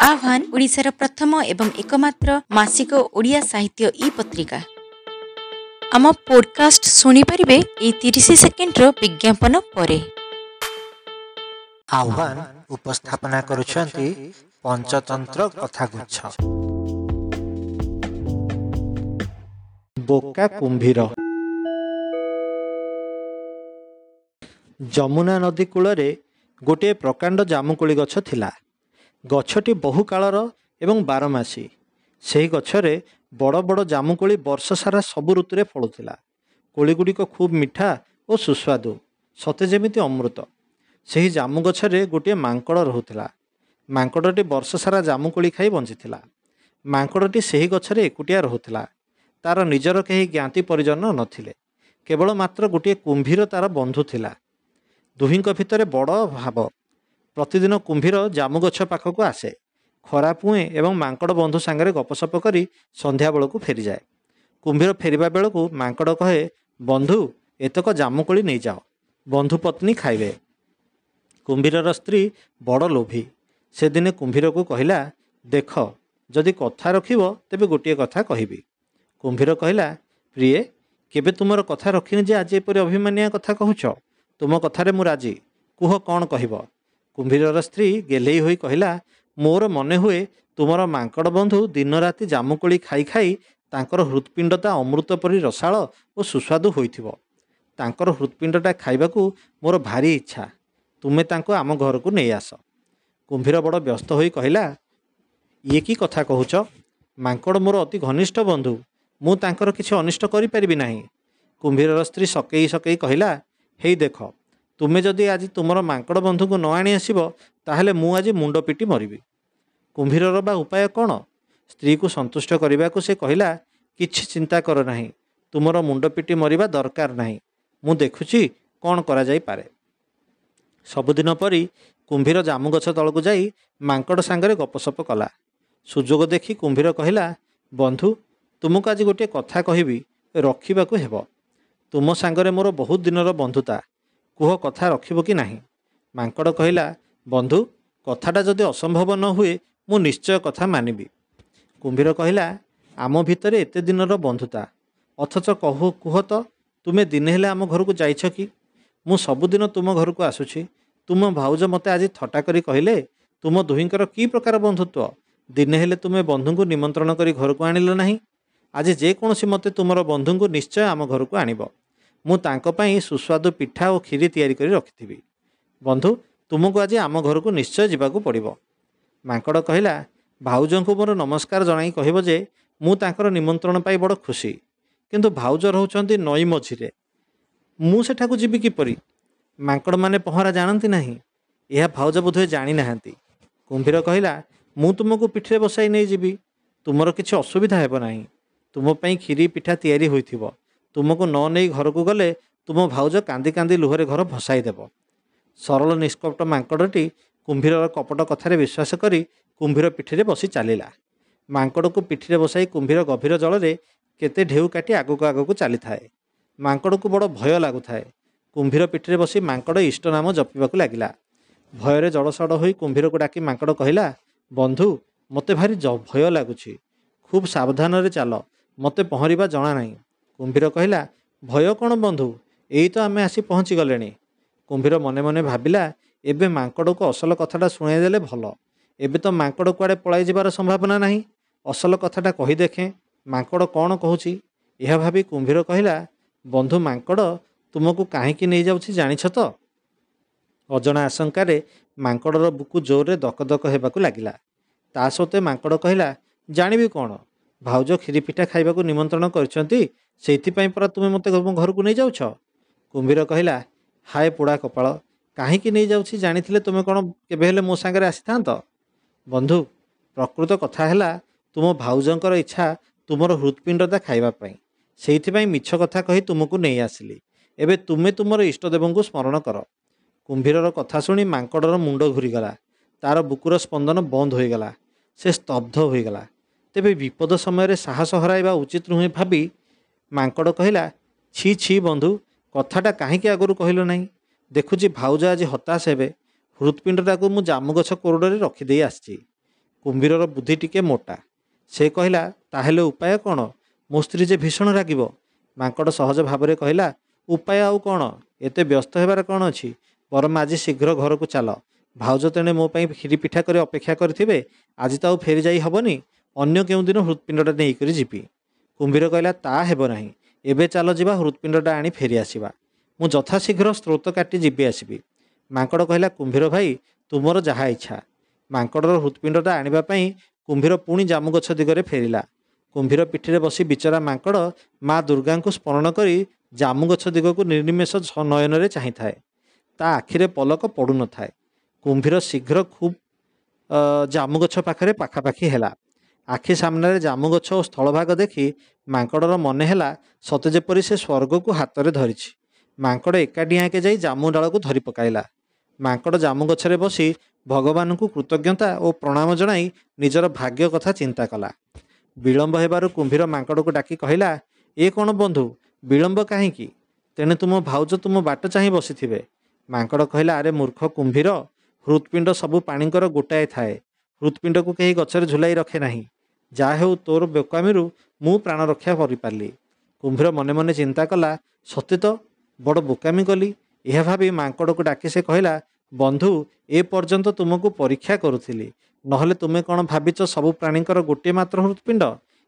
ଆହ୍ୱାନ ଓଡ଼ିଶାର ପ୍ରଥମ ଏବଂ ଏକମାତ୍ର ମାସିକ ଓଡ଼ିଆ ସାହିତ୍ୟ ଇ ପତ୍ରିକା। ଆମ ପୋଡକାଷ୍ଟ ଶୁଣିପାରିବେ ଏଇ 30 ସେକେଣ୍ଡର ବିଜ୍ଞାପନ ପରେ। ଆହ୍ୱାନ ଉପସ୍ଥାପନା କରୁଛନ୍ତି ପଞ୍ଚତନ୍ତ୍ର କଥାଗୁଚ୍ଛ। ବୋକା କୁମ୍ଭୀର। ଯମୁନା ନଦୀ କୂଳରେ ଗୋଟିଏ ପ୍ରକାଣ୍ଡ ଜାମୁକୋଳି ଗଛ ଥିଲା। ଗଛଟି ବହୁ କାଳର ଏବଂ ବାରମାସୀ। ସେହି ଗଛରେ ବଡ଼ ବଡ଼ ଜାମୁକୋଳି ବର୍ଷ ସାରା ସବୁ ଋତୁରେ ଫଳୁଥିଲା। କୋଳିଗୁଡ଼ିକ ଖୁବ୍ ମିଠା ଓ ସୁସ୍ୱାଦୁ, ସତେ ଯେମିତି ଅମୃତ। ସେହି ଜାମୁ ଗଛରେ ଗୋଟିଏ ମାଙ୍କଡ଼ ରହୁଥିଲା। ମାଙ୍କଡ଼ଟି ବର୍ଷ ସାରା ଜାମୁକୋଳି ଖାଇ ବଞ୍ଚିଥିଲା। ମାଙ୍କଡ଼ଟି ସେହି ଗଛରେ ଏକୁଟିଆ ରହୁଥିଲା। ତାର ନିଜର କେହି ଜ୍ଞାତି ପରିଜନ ନଥିଲେ। କେବଳ ମାତ୍ର ଗୋଟିଏ କୁମ୍ଭୀର ତାର ବନ୍ଧୁ ଥିଲା। ଦୁହିଁଙ୍କ ଭିତରେ ବଡ଼ ଭାବ। ପ୍ରତିଦିନ କୁମ୍ଭୀର ଜାମୁ ଗଛ ପାଖକୁ ଆସେ, ଖରା ପୁଏଁ ଏବଂ ମାଙ୍କଡ଼ ବନ୍ଧୁ ସାଙ୍ଗରେ ଗପସପ କରି ସନ୍ଧ୍ୟାବେଳକୁ ଫେରିଯାଏ। କୁମ୍ଭୀର ଫେରିବା ବେଳକୁ ମାଙ୍କଡ଼ କହେ, ବନ୍ଧୁ, ଏତକ ଜାମୁକୋଳି ନେଇଯାଅ, ବନ୍ଧୁ ପତ୍ନୀ ଖାଇବେ। କୁମ୍ଭୀରର ସ୍ତ୍ରୀ ବଡ଼ ଲୋଭୀ। ସେଦିନେ କୁମ୍ଭୀରକୁ କହିଲା, ଦେଖ, ଯଦି କଥା ରଖିବ ତେବେ ଗୋଟିଏ କଥା କହିବି। କୁମ୍ଭୀର କହିଲା, ପ୍ରିୟେ, କେବେ ତୁମର କଥା ରଖିନି ଯେ ଆଜି ଏପରି ଅଭିମାନିଆ କଥା କହୁଛ? ତୁମ କଥାରେ ମୁଁ ରାଜି, କୁହ କ'ଣ କହିବ? କୁମ୍ଭୀରର ସ୍ତ୍ରୀ ଗେହ୍ଲେଇ ହୋଇ କହିଲା, ମୋର ମନେ ହୁଏ ତୁମର ମାଙ୍କଡ଼ ବନ୍ଧୁ ଦିନରାତି ଜାମୁକୋଳି ଖାଇ ଖାଇ ତାଙ୍କର ହୃତ୍ପିଣ୍ଡଟା ଅମୃତ ପରି ରସାଳ ଓ ସୁସ୍ୱାଦୁ ହୋଇଥିବ। ତାଙ୍କର ହୃତ୍ପିଣ୍ଡଟା ଖାଇବାକୁ ମୋର ଭାରି ଇଚ୍ଛା। ତୁମେ ତାଙ୍କୁ ଆମ ଘରକୁ ନେଇ ଆସ। କୁମ୍ଭୀର ବଡ଼ ବ୍ୟସ୍ତ ହୋଇ କହିଲା, ଇଏ କି କଥା କହୁଛ? ମାଙ୍କଡ଼ ମୋର ଅତି ଘନିଷ୍ଠ ବନ୍ଧୁ, ମୁଁ ତାଙ୍କର କିଛି ଅନିଷ୍ଟ କରିପାରିବି ନାହିଁ। କୁମ୍ଭୀରର ସ୍ତ୍ରୀ ସକେଇ ସକେଇ କହିଲା, ହେଇ ଦେଖ, ତୁମେ ଯଦି ଆଜି ତୁମର ମାଙ୍କଡ଼ ବନ୍ଧୁଙ୍କୁ ନ ଆଣି ଆସିବ, ତାହେଲେ ମୁଁ ଆଜି ମୁଣ୍ଡ ପିଟି ମରିବି। କୁମ୍ଭୀରର ବା ଉପାୟ କ'ଣ? ସ୍ତ୍ରୀକୁ ସନ୍ତୁଷ୍ଟ କରିବାକୁ ସେ କହିଲା, କିଛି ଚିନ୍ତା କର ନାହିଁ, ତୁମର ମୁଣ୍ଡ ପିଟି ମରିବା ଦରକାର ନାହିଁ, ମୁଁ ଦେଖୁଛି କ'ଣ କରାଯାଇପାରେ। ସବୁଦିନ ପରି କୁମ୍ଭୀର ଜାମୁ ଗଛ ତଳକୁ ଯାଇ ମାଙ୍କଡ଼ ସାଙ୍ଗରେ ଗପସପ କଲା। ସୁଯୋଗ ଦେଖି କୁମ୍ଭୀର କହିଲା, ବନ୍ଧୁ, ତୁମକୁ ଆଜି ଗୋଟିଏ କଥା କହିବି, ରଖିବାକୁ ହେବ। ତୁମ ସାଙ୍ଗରେ ମୋର ବହୁତ ଦିନର ବନ୍ଧୁତା, କୁହ କଥା ରଖିବ କି ନାହିଁ? ମାଙ୍କଡ଼ କହିଲା, ବନ୍ଧୁ, କଥାଟା ଯଦି ଅସମ୍ଭବ ନ ହୁଏ ମୁଁ ନିଶ୍ଚୟ କଥା ମାନିବି। କୁମ୍ଭୀର କହିଲା, ଆମ ଭିତରେ ଏତେ ଦିନର ବନ୍ଧୁତା, ଅଥଚ କୁହ ତ, ତୁମେ ଦିନେ ହେଲେ ଆମ ଘରକୁ ଯାଇଛ କି? ମୁଁ ସବୁଦିନ ତୁମ ଘରକୁ ଆସୁଛି। ତୁମ ଭାଉଜ ମୋତେ ଆଜି ଥଟ୍ଟା କରି କହିଲେ, ତୁମ ଦୁହିଁଙ୍କର କି ପ୍ରକାର ବନ୍ଧୁତ୍ୱ? ଦିନେ ହେଲେ ତୁମେ ବନ୍ଧୁଙ୍କୁ ନିମନ୍ତ୍ରଣ କରି ଘରକୁ ଆଣିଲ ନାହିଁ। ଆଜି ଯେକୌଣସି ମତେ ତୁମର ବନ୍ଧୁଙ୍କୁ ନିଶ୍ଚୟ ଆମ ଘରକୁ ଆଣିବ। ମୁଁ ତାଙ୍କ ପାଇଁ ସୁସ୍ୱାଦୁ ପିଠା ଓ କ୍ଷୀରି ତିଆରି କରି ରଖିଥିବି। ବନ୍ଧୁ, ତୁମକୁ ଆଜି ଆମ ଘରକୁ ନିଶ୍ଚୟ ଯିବାକୁ ପଡ଼ିବ। ମାଙ୍କଡ଼ କହିଲା, ଭାଉଜଙ୍କୁ ମୋର ନମସ୍କାର ଜଣାଇ କହିବ ଯେ ମୁଁ ତାଙ୍କର ନିମନ୍ତ୍ରଣ ପାଇ ବଡ଼ ଖୁସି, କିନ୍ତୁ ଭାଉଜ ରହୁଛନ୍ତି ନଈ ମଝିରେ, ମୁଁ ସେଠାକୁ ଯିବି କିପରି? ମାଙ୍କଡ଼ମାନେ ପହଁରା ଜାଣନ୍ତି ନାହିଁ, ଏହା ଭାଉଜ ବୋଧହୁଏ ଜାଣିନାହାନ୍ତି। କୁମ୍ଭୀର କହିଲା, ମୁଁ ତୁମକୁ ପିଠିରେ ବସାଇ ନେଇଯିବି, ତୁମର କିଛି ଅସୁବିଧା ହେବ ନାହିଁ। ତୁମ ପାଇଁ କ୍ଷୀରି ପିଠା ତିଆରି ହୋଇଥିବ। ତୁମକୁ ନ ନେଇ ଘରକୁ ଗଲେ ତୁମ ଭାଉଜ କାନ୍ଦି କାନ୍ଦି ଲୁହରେ ଘର ଭସାଇ ଦେବ। ସରଳ ନିଷ୍କପଟ ମାଙ୍କଡ଼ଟି କୁମ୍ଭୀରର କପଟ କଥାରେ ବିଶ୍ୱାସ କରି କୁମ୍ଭୀର ପିଠିରେ ବସି ଚାଲିଲା। ମାଙ୍କଡ଼କୁ ପିଠିରେ ବସାଇ କୁମ୍ଭୀର ଗଭୀର ଜଳରେ କେତେ ଢେଉ କାଟି ଆଗକୁ ଆଗକୁ ଚାଲିଥାଏ। ମାଙ୍କଡ଼କୁ ବଡ଼ ଭୟ ଲାଗୁଥାଏ। କୁମ୍ଭୀର ପିଠିରେ ବସି ମାଙ୍କଡ଼ ଇଷ୍ଟ ନାମ ଜପିବାକୁ ଲାଗିଲା। ଭୟରେ ଜଳସଡ଼ ହୋଇ କୁମ୍ଭୀରକୁ ଡାକି ମାଙ୍କଡ଼ କହିଲା, ବନ୍ଧୁ, ମୋତେ ଭାରି ଭୟ ଲାଗୁଛି, ଖୁବ୍ ସାବଧାନରେ ଚାଲ, ମୋତେ ପହଁରିବା ଜଣା ନାହିଁ। କୁମ୍ଭୀର କହିଲା, ଭୟ କ'ଣ ବନ୍ଧୁ, ଏଇ ତ ଆମେ ଆସି ପହଞ୍ଚିଗଲେଣି। କୁମ୍ଭୀର ମନେ ମନେ ଭାବିଲା, ଏବେ ମାଙ୍କଡ଼କୁ ଅସଲ କଥାଟା ଶୁଣାଇଦେଲେ ଭଲ। ଏବେ ତ ମାଙ୍କଡ଼ କୁଆଡ଼େ ପଳାଇ ଯିବାର ସମ୍ଭାବନା ନାହିଁ। ଅସଲ କଥାଟା କହି ଦେଖେଁ ମାଙ୍କଡ଼ କ'ଣ କହୁଛି। ଏହା ଭାବି କୁମ୍ଭୀର କହିଲା, ବନ୍ଧୁ ମାଙ୍କଡ଼, ତୁମକୁ କାହିଁକି ନେଇଯାଉଛି ଜାଣିଛ ତ? ଅଜଣା ଆଶଙ୍କାରେ ମାଙ୍କଡ଼ର ବୁକୁ ଜୋରରେ ଦକଦକ ହେବାକୁ ଲାଗିଲା। ତା ସତ୍ତ୍ୱେ ମାଙ୍କଡ଼ କହିଲା, ଜାଣିବି କ'ଣ, ଭାଉଜ କ୍ଷୀରି ପିଠା ଖାଇବାକୁ ନିମନ୍ତ୍ରଣ କରିଛନ୍ତି, ସେଇଥିପାଇଁ ପରା ତୁମେ ମୋତେ ଘରକୁ ନେଇଯାଉଛ। କୁମ୍ଭୀର କହିଲା, ହାୟ ପୋଡ଼ା କପାଳ, କାହିଁକି ନେଇଯାଉଛି ଜାଣିଥିଲେ ତୁମେ କ'ଣ କେବେ ହେଲେ ମୋ ସାଙ୍ଗରେ ଆସିଥାନ୍ତ? ବନ୍ଧୁ, ପ୍ରକୃତ କଥା ହେଲା ତୁମ ଭାଉଜଙ୍କର ଇଚ୍ଛା ତୁମର ହୃତ୍ପିଣ୍ଡଟା ଖାଇବା ପାଇଁ, ସେଇଥିପାଇଁ ମିଛ କଥା କହି ତୁମକୁ ନେଇ ଆସିଲି। ଏବେ ତୁମେ ତୁମର ଇଷ୍ଟଦେବଙ୍କୁ ସ୍ମରଣ କର। କୁମ୍ଭୀରର କଥା ଶୁଣି ମାଙ୍କଡ଼ର ମୁଣ୍ଡ ଘୂରିଗଲା। ତାର ବୁକୁର ସ୍ପନ୍ଦନ ବନ୍ଦ ହୋଇଗଲା। ସେ ସ୍ତବ୍ଧ ହୋଇଗଲା। ତେବେ ବିପଦ ସମୟରେ ସାହସ ହରାଇବା ଉଚିତ ନୁହେଁ ଭାବି ମାଙ୍କଡ଼ କହିଲା, ଛି ଛି ବନ୍ଧୁ, କଥାଟା କାହିଁକି ଆଗରୁ କହିଲ ନାହିଁ? ଦେଖୁଛି ଭାଉଜ ଆଜି ହତାଶ ହେବେ। ହୃତ୍ପିଣ୍ଡଟାକୁ ମୁଁ ଜାମୁଗଛ କୋରଡ଼ରେ ରଖିଦେଇ ଆସିଛି। କୁମ୍ଭୀରର ବୁଦ୍ଧି ଟିକେ ମୋଟା। ସେ କହିଲା, ତାହେଲେ ଉପାୟ କ'ଣ? ମୋ ସ୍ତ୍ରୀ ଯେ ଭୀଷଣ ରାଗିବ। ମାଙ୍କଡ଼ ସହଜ ଭାବରେ କହିଲା, ଉପାୟ ଆଉ କ'ଣ? ଏତେ ବ୍ୟସ୍ତ ହେବାର କ'ଣ ଅଛି? ବରଂ ଆଜି ଶୀଘ୍ର ଘରକୁ ଚାଲ। ଭାଉଜ ତେଣେ ମୋ ପାଇଁ କ୍ଷୀରି ପିଠା କରି ଅପେକ୍ଷା କରିଥିବେ। ଆଜି ତ ଆଉ ଫେରି ଯାଇ ହେବନି, ଅନ୍ୟ କେଉଁଦିନ ହୃତ୍ପିଣ୍ଡଟା ନେଇକରି ଯିବି। କୁମ୍ଭୀର କହିଲା, ତା ହେବ ନାହିଁ, ଏବେ ଚାଲ ଯିବା, ହୃତ୍ପିଣ୍ଡଟା ଆଣି ଫେରି ଆସିବା। ମୁଁ ଯଥାଶୀଘ୍ର ସ୍ରୋତ କାଟି ଯିବି ଆସିବି। ମାଙ୍କଡ଼ କହିଲା, କୁମ୍ଭୀର ଭାଇ, ତୁମର ଯାହା ଇଚ୍ଛା। ମାଙ୍କଡ଼ର ହୃତ୍ପିଣ୍ଡଟା ଆଣିବା ପାଇଁ କୁମ୍ଭୀର ପୁଣି ଜାମୁଗଛ ଦିଗରେ ଫେରିଲା। କୁମ୍ଭୀର ପିଠିରେ ବସି ବିଚରା ମାଙ୍କଡ଼ ମା ଦୁର୍ଗାଙ୍କୁ ସ୍ମରଣ କରି ଜାମୁଗଛ ଦିଗକୁ ନିର୍ନିମେଷ ନୟନରେ ଚାହିଁଥାଏ। ତା ଆଖିରେ ପଲକ ପଡ଼ୁନଥାଏ। କୁମ୍ଭୀର ଶୀଘ୍ର ଖୁବ୍ ଜାମୁଗଛ ପାଖରେ ପାଖାପାଖି ହେଲା। ଆଖି ସାମ୍ନାରେ ଜାମୁଗଛ ଓ ସ୍ଥଳଭାଗ ଦେଖି ମାଙ୍କଡ଼ର ମନେ ହେଲା ସତେ ଯେପରି ସେ ସ୍ୱର୍ଗକୁ ହାତରେ ଧରିଛି। ମାଙ୍କଡ଼ ଏକାଡିଆଁକେ ଯାଇ ଜାମୁ ଡାଳକୁ ଧରି ପକାଇଲା। ମାଙ୍କଡ଼ ଜାମୁଗଛରେ ବସି ଭଗବାନଙ୍କୁ କୃତଜ୍ଞତା ଓ ପ୍ରଣାମ ଜଣାଇ ନିଜର ଭାଗ୍ୟ କଥା ଚିନ୍ତା କଲା। ବିଳମ୍ବ ହେବାରୁ କୁମ୍ଭୀର ମାଙ୍କଡ଼କୁ ଡାକି କହିଲା, ଏ କ'ଣ ବନ୍ଧୁ, ବିଳମ୍ବ କାହିଁକି? ତେଣେ ତୁମ ଭାଉଜ ତୁମ ବାଟ ଚାହିଁ ବସିଥିବେ। ମାଙ୍କଡ଼ କହିଲା, ଆରେ ମୂର୍ଖ କୁମ୍ଭୀର, ହୃତ୍ପିଣ୍ଡ ସବୁ ପ୍ରାଣୀଙ୍କର ଗୋଟାଏ ଥାଏ। ହୃତ୍ପିଣ୍ଡକୁ କେହି ଗଛରେ ଝୁଲାଇ ରଖେ ନାହିଁ। ଯାହା ହେଉ, ତୋର ବୋକାମିରୁ ମୁଁ ପ୍ରାଣ ରକ୍ଷା କରିପାରିଲି। କୁମ୍ଭୀର ମନେ ମନେ ଚିନ୍ତା କଲା, ସତେ ତ ବଡ଼ ବୋକାମି କଲି। ଏହା ଭାବି ମାଙ୍କଡ଼କୁ ଡାକି ସେ କହିଲା, ବନ୍ଧୁ, ଏ ପର୍ଯ୍ୟନ୍ତ ତୁମକୁ ପରୀକ୍ଷା କରୁଥିଲି। ନହେଲେ ତୁମେ କ'ଣ ଭାବିଛ ସବୁ ପ୍ରାଣୀଙ୍କର ଗୋଟିଏ ମାତ୍ର ହୃତ୍ପିଣ୍ଡ?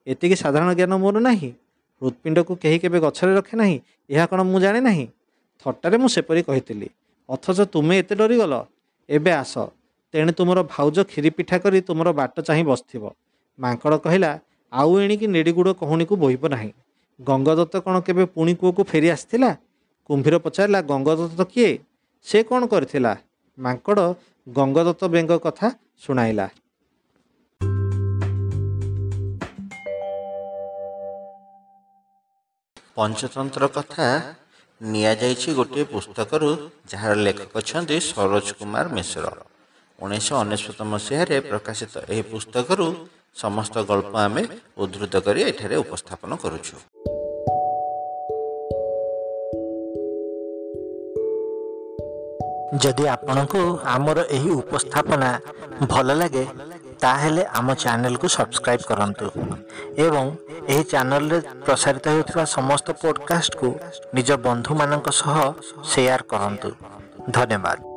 ଏତିକି ସାଧାରଣ ଜ୍ଞାନ ମୋର ନାହିଁ? ହୃତ୍ପିଣ୍ଡକୁ କେହି କେବେ ଗଛରେ ରଖେ ନାହିଁ, ଏହା କ'ଣ ମୁଁ ଜାଣେ ନାହିଁ? ଥଟ୍ଟାରେ ମୁଁ ସେପରି କହିଥିଲି, ଅଥଚ ତୁମେ ଏତେ ଡରିଗଲ। ଏବେ ଆସ, ତେଣେ ତୁମର ଭାଉଜ କ୍ଷୀରି ପିଠା କରି ତୁମର ବାଟ ଚାହିଁ ବସିଥିବ। ମାଙ୍କଡ଼ କହିଲା, ଆଉ ଏଣିକି ନେଡ଼ିଗୁଡ଼ କହୁଣୀକୁ ବୋହିବ ନାହିଁ। ଗଙ୍ଗଦତ୍ତ କ'ଣ କେବେ ପୁଣି କୂଅକୁ ଫେରି ଆସିଥିଲା? କୁମ୍ଭୀର ପଚାରିଲା, ଗଙ୍ଗଦତ୍ତ କିଏ? ସେ କ'ଣ କରିଥିଲା? ମାଙ୍କଡ଼ ଗଙ୍ଗଦତ୍ତ ବେଙ୍ଗ କଥା ଶୁଣାଇଲା। ପଞ୍ଚତନ୍ତ୍ର କଥା ନିଆଯାଇଛି ଗୋଟିଏ ପୁସ୍ତକରୁ, ଯାହାର ଲେଖକ ଅଛନ୍ତି ସରୋଜ କୁମାର ମିଶ୍ର। 1999 ମସିହାରେ ପ୍ରକାଶିତ ଏହି ପୁସ୍ତକରୁ ସମସ୍ତ ଗଳ୍ପ ଆମେ ଉଦ୍ଧୃତ କରି ଏଠାରେ ଉପସ୍ଥାପନ କରୁଛୁ। ଯଦି ଆପଣଙ୍କୁ ଆମର ଏହି ଉପସ୍ଥାପନା ଭଲ ଲାଗେ, ତାହେଲେ ଆମ ଚ୍ୟାନେଲକୁ ସବସ୍କ୍ରାଇବ୍ କରନ୍ତୁ ଏବଂ ଏହି ଚ୍ୟାନେଲରେ ପ୍ରସାରିତ ହେଉଥିବା ସମସ୍ତ ପଡ଼କାଷ୍ଟକୁ ନିଜ ବନ୍ଧୁମାନଙ୍କ ସହ ସେୟାର କରନ୍ତୁ। ଧନ୍ୟବାଦ।